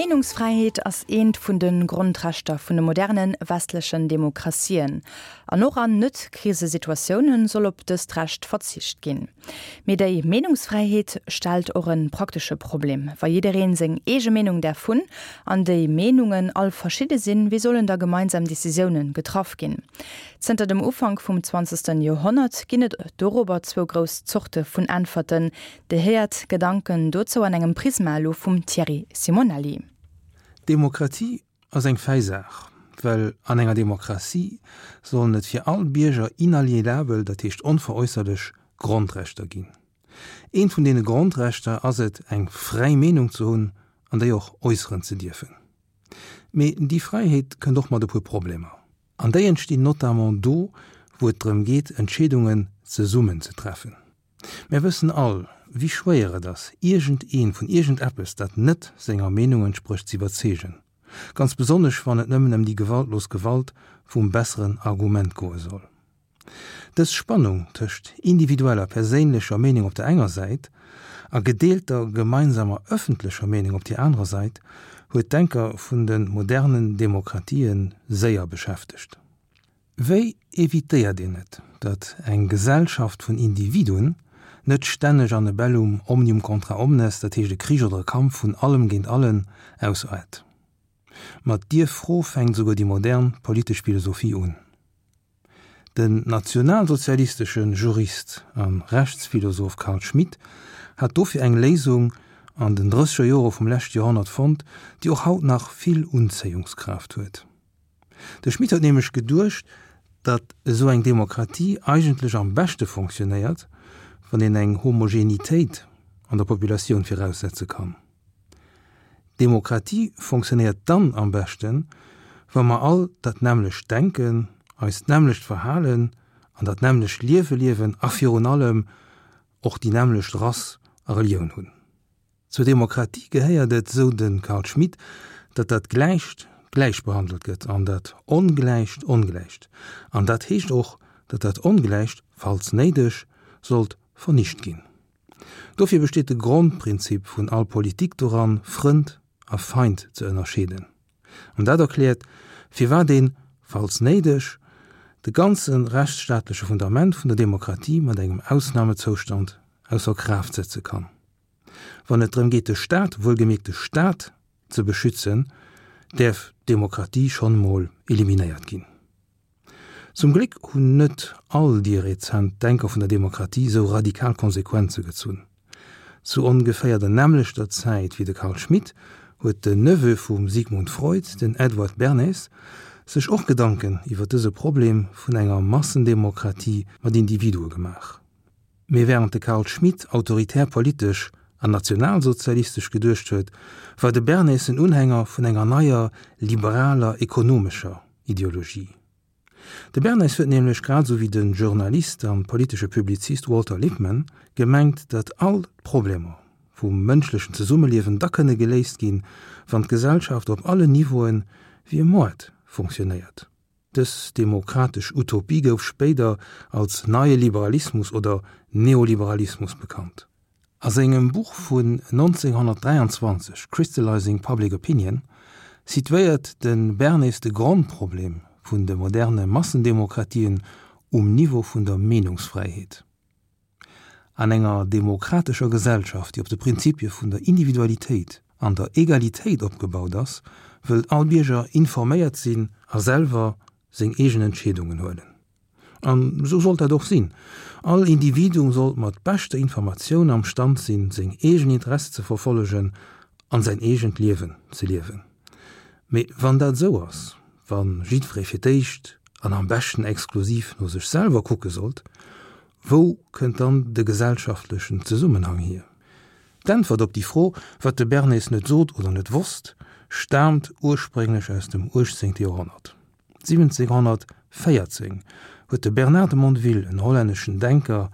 D'Meenungsfräiheet ass eent vun de Grondrechter vun de moderne westlechen Demokratien. An och an Net-Krisesituatioune soll op dëst Recht verzicht ginn. Mee déi Meenungsfräiheet stellt och e praktesche Problem. Wa jiddereen seng eege Meenung däerf hunn, an déi Meenungen all verschidde sinn, wéi sollen da gemeinsam Decisiounen getraff ginn? Zënter dem Ufank vum zwanzegsten Joerhonnert ginn et dorobber zwou grouss Zorte vun Äntwerten, Dir héiert Gedanken dozou an engem Prisma elo vum Thierry Simonelli. Demokratie ass eng fäi Saach, well an enger Demokratie sollen et fir all Bierger inalienabel, dat heescht onveräusserlech, Grondrechter ginn. Eent vun deene Grondrechter ass et, eng fräi Meenung ze hunn an déi och äusseren ze dierfen. Mee déi Fräiheet kënnt och mat e puer Problemer. An déi entstinn notamment do, wou et drëm geet, Entscheedungen zesummen ze treffen. Mär wëssen all, wéi schwéier et ass, iergend een vun iergend eppes, dat net senger Meenung entsprécht, z'iwwerzeegen. Ganz besonnesch, wann et nëmmen ëm déi gewaltlos Gewalt vum besseren Argument goe soll. Dës Spannung tëscht individueller, perséinlecher Meenung op der enger Säit a gedeelter, gemeinsamer, ëffentlecher Meenung op déi anerer Sait huet d'Denker vun de modernen Demokratië séier beschäftegt. Wéi evitéiert een et, datt eng Gesellschaft vun Individuen net stänneg an e Bellum omnium contra omnes, dat heescht e Krich oder e Kampf vun allem géint allen, ausaart? Mat dier Fro fänkt esouguer déi modern politesch Philosophie un. Den nationalsozialistesche Jurist a Rechtsphilosoph Carl Schmitt hat dofir eng Léisung an den drësseger Jore vum leschte Joerhonnert fonnt, déi och haut nach vill Unzéiungskraaft huet. De Schmitt huet nämlech geduecht, datt esou eng Demokratie eigentlech am beschte fonctionnéiert, wann een eng Homogenitéit an der Populatioun viraussetze kann. Demokratie fonctionnéiert dann am beschten, wa mer all dat nämmlecht denken, eis d'nämmlecht verhalen an dat nämmlecht Liewe liewen a virun allem och déi nämmlecht Rass a Relioun hunn. Zur Demokratie gehéiert et, sou de Carl Schmitt, datt dat Gläicht gläich behandelt gëtt an dat Ongläicht ongläicht. An dat heescht och, datt dat Ongläicht, falls néideg, sollt vernicht ginn. Dofir besteet de Grondprinzip vun all Politik doran, Frënd a Feind ze ënnerscheeden. An dat erkläert, firwat een, falls néideg, de ganze rechtsstaatleche Fundament vun der Demokratie mat engem Ausnamezoustand ausser Kraaft setze kann. Wann et drëm geet de Staat, wuelgemierkt de Staat, ze beschützen, däerf d'Demokratie schonn emol eliminéiert ginn. Zum Gléck hunn net all déi rezent Denker vun der Demokratie esou radikal Konsequenze gezunn. Zu ongeféier der nämmlechter Zäit wéi de Carl Schmitt huet den Neveu vum Sigmund Freud, den Edward Bernays, sech och Gedanken iwwer dëse Problem vun enger Massendemokratie mat Individue gemaach. Mee wärend de Carl Schmitt autoritär politesch an nationalsozialistesch geduecht huet, war de Bernays en Unhänger vun enger neier liberaler ekonomescher Ideologie. De Bernays huet nämlech, grad esou wéi de Journalist an politesche Publizist Walter Lippmann, gemengt, datt all d'Problemer vum mënschlechen Zesummeliewen da kënne geléist ginn, wann d'Gesellschaft op allen Niveauen wéi e Moart funktionéiert. Dës demokratesch Utopie gouf spéider als Neie Liberalismus oder Neoliberalismus bekannt. A sengem Buch vun 1923 Crystallizing Public Opinion situéiert de Bernays de Grondproblem vun de moderne Massendemokratien um Niveau vun der Meenungsfräiheet. An enger demokratescher Gesellschaft, déi op de Prinzipie vun der Individualitéit an der Egalitéit opgebaut ass, wëllt all Bierger informéiert sinn a selwer seng eegen Entscheedungen huelen. An esou sollt dat och sinn. All Individuum sollt mat beschter Informatioun am Stand sinn, seng eegen Interesse ze verfollegen an säin eegent Liewen ze liewen. Mee wann dat esou ass, wa jiddweree fir d'éischt an am beschten exklusiv no sech selwer kucke sollt, Wou kënnt dann de gesellschaftlechen Zesummenhang hier? D'Äntwert op déi Fro, wat de Bernays net sot oder net wosst, staamt ursprénglech aus dem 18. Joerhonnert. 1714 huet de Bernard de Mondeville, en hollänneschen Denker,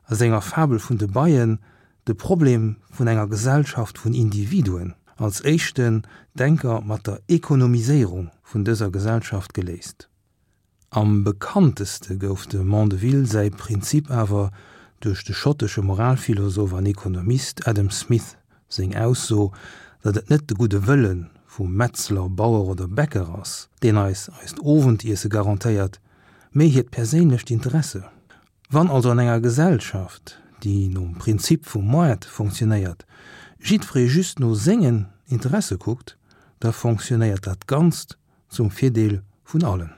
a senger Fabel vun de Beien de Problem vun enger Gesellschaft vun Individuen als éischten Denker mat der Ekonomiséierung vun dëser Gesellschaft geléist. Am bekannteste gouf dem Mondeville säi Prinzip awer duerch de schottesche Moralphilosoph an Ekonomist Adam Smith seng Ausso, datt et net de gudde Wëlle vum Metzler, Bauer oder Bäcker ass, deen eis eist Owendiesse garantéiert, mee hiert perséinlecht Interesse. Wann also an enger Gesellschaft, déi nom Prinzip vum Moart fonctionnéiert, jiddweree just no sengen Interesse kuckt, da fonctionnéiert dat Ganzt zum Virdeel vun allen.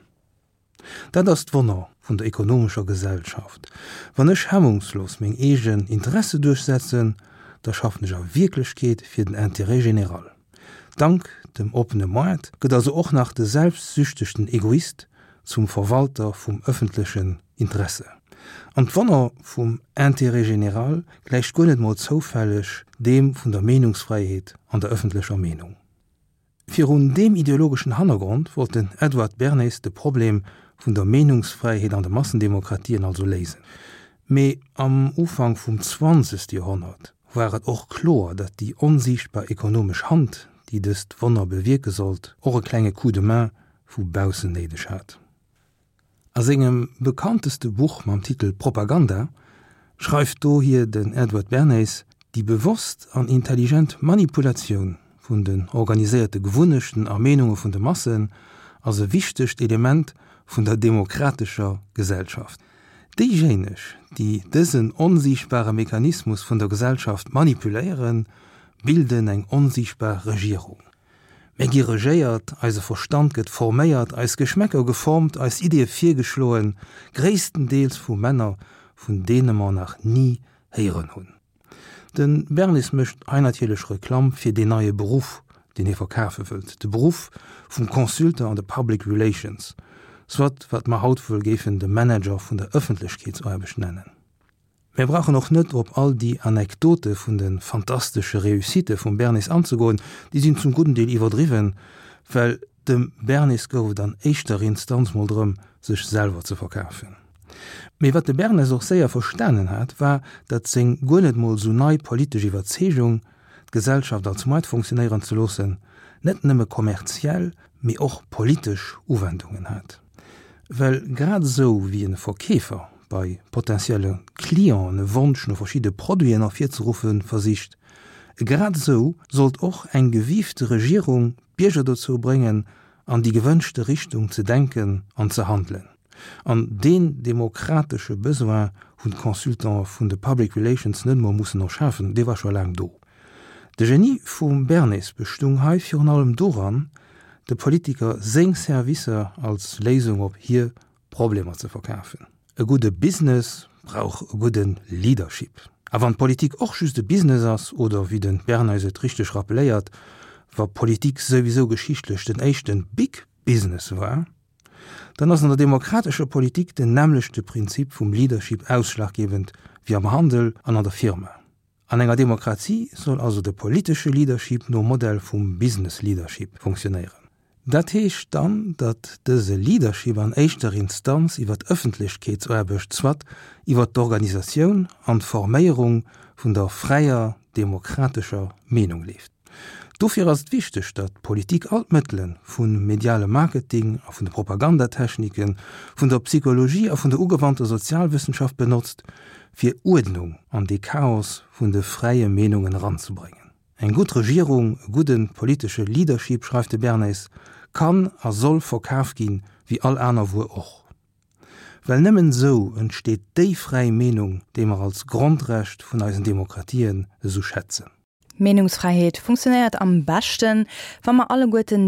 Dat ass d'Wonner vun der ekonomescher Gesellschaft. Wann ech hemmungslos meng eegen Interesse duerchsetzen, da schaffen ech a Wierklechkeet fir den Intérêt général. Dank dem oppene Moart gëtt also och nach de selbstsüchtegten Egoist zum Verwalter vum ëffentlechen Interesse. An d'Wonner vum Intérêt général gläicht guer net mol zoufälleg deem vun der Meenungsfräiheet an der ëffentlecher Meenung. Virun deem ideologeschen Hannergrond wollt den Edward Bernays de Problem vun der Meenungsfräiheet an de Massendemokratien also léisen. Mee am Ufank vum zwanzegste Joerhonnert war et och kloer, datt déi onsiichtbar ekonomesch Hand, déi dëst Wonner bewierke sollt, och e klenge Coup de main vu baussen néideg hat. A sengem bekannteste Buch mam Titel Propaganda schreift dohier den Edward Bernays, Déi bewosst an intelligent Manipulatioun vun den organiséierte Gewunnechten a Meenunge vun de Massen ass e wichtegt Element vun der demokratescher Gesellschaft. Déijéineg, déi dësen onsiichtbare Mechanismus vun der Gesellschaft manipuléieren, bilden eng onsiichtbar Regierung. Mir gi regéiert, eise Verstand gëtt forméiert, eis Geschmäcker geformt, eis Ideeë virgeschloen, gréisstendeels vu Männer, vun deene mer nach ni héieren hunn. De Bernis mécht hei natierlech Reklamm fir deen neie Beruff, deen hie verkafe wëllt, de Beruff vum Consultant an de Public Relations, soit wat mer haut wuel géifen de Manager vun der Ëffentlechkeetsaarbecht nennen. Mir brauchen och net op all déi Anekdote vun de fantastesche Réussitte vum Bernis anzegoen, déi sinn zum gudden Deel iwwerdriwwen, well dem Bernis gouf et an éischter Instanz mol drëm, sech selwer ze verkafen. Mee wat de Bernes och séier verstanen hat, war, datt seng guer net mol sou nei politesch Iwwerzeegung, d'Gesellschaft als Moart funktionéieren ze loossen, net nëmme kommerziell, mee och politesch Uwendungen hat. Well grad esou wéi e Verkeefer bei potentielle Clienten e Wonsch no verschidde Produiten ervirzeruffe versicht, grad esou sollt och eng gewiifte Regierung d'Bierger dozou bréngen, an déi gewënschte Richtung ze denken an ze handelen. An deen demokratesche Besoin hunn d'Consultante vun de Public Relations net emol mussen erschafen, dee war scho laang do. De Genie vum Bernays bestung hei virun allem doran, de Politiker seng Servicer als Léisung op hir Problemer ze verkafen. E gudde Business brauch e gudde Leadership. A wann d'Politik och just e Business ass, oder wéi de Bernays et richteg rappeléiert, wa Politik souwisou geschichtlech den éischte Big Business war, dann ass an der demokratescher Politik den nämmlechte Prinzip vum Leadership ausschlaggebend wéi am Handel an an der Firma. An enger Demokratie soll also de politesche Leadership nom Modell vum Business Leadership funktionéieren. Dat heescht dann, datt dëse Leadership an éischter Instanz iwwer d'Ëffentlechkeetsaarbecht, soit iwwer d'Organisatioun an d'Forméierung vun der fräier demokratescher Meenung leeft. Dofir ass et wichteg, datt d'Politik all d'Mëttele vum mediale Marketing a vun de Propagandatechniken, vun der Psychologie a vun der ugewannter Sozialwëssenschaft benotzt, fir Uerdnung an dee Chaos vun de fräie Meenungen eranzebréngen. Eng gutt Regierung, e gudde politesche Leadership, schreift de Bernays, kann a soll verkaf ginn, wéi all aner Wuer och. Well nëmmen esou entsteet déi fräi Meenung, déi mer als Grondrecht vun eisen Demokratien esou schätzen. D'Meenungsfräiheet funktionéiert am beschten, wa mer alleguerten déi.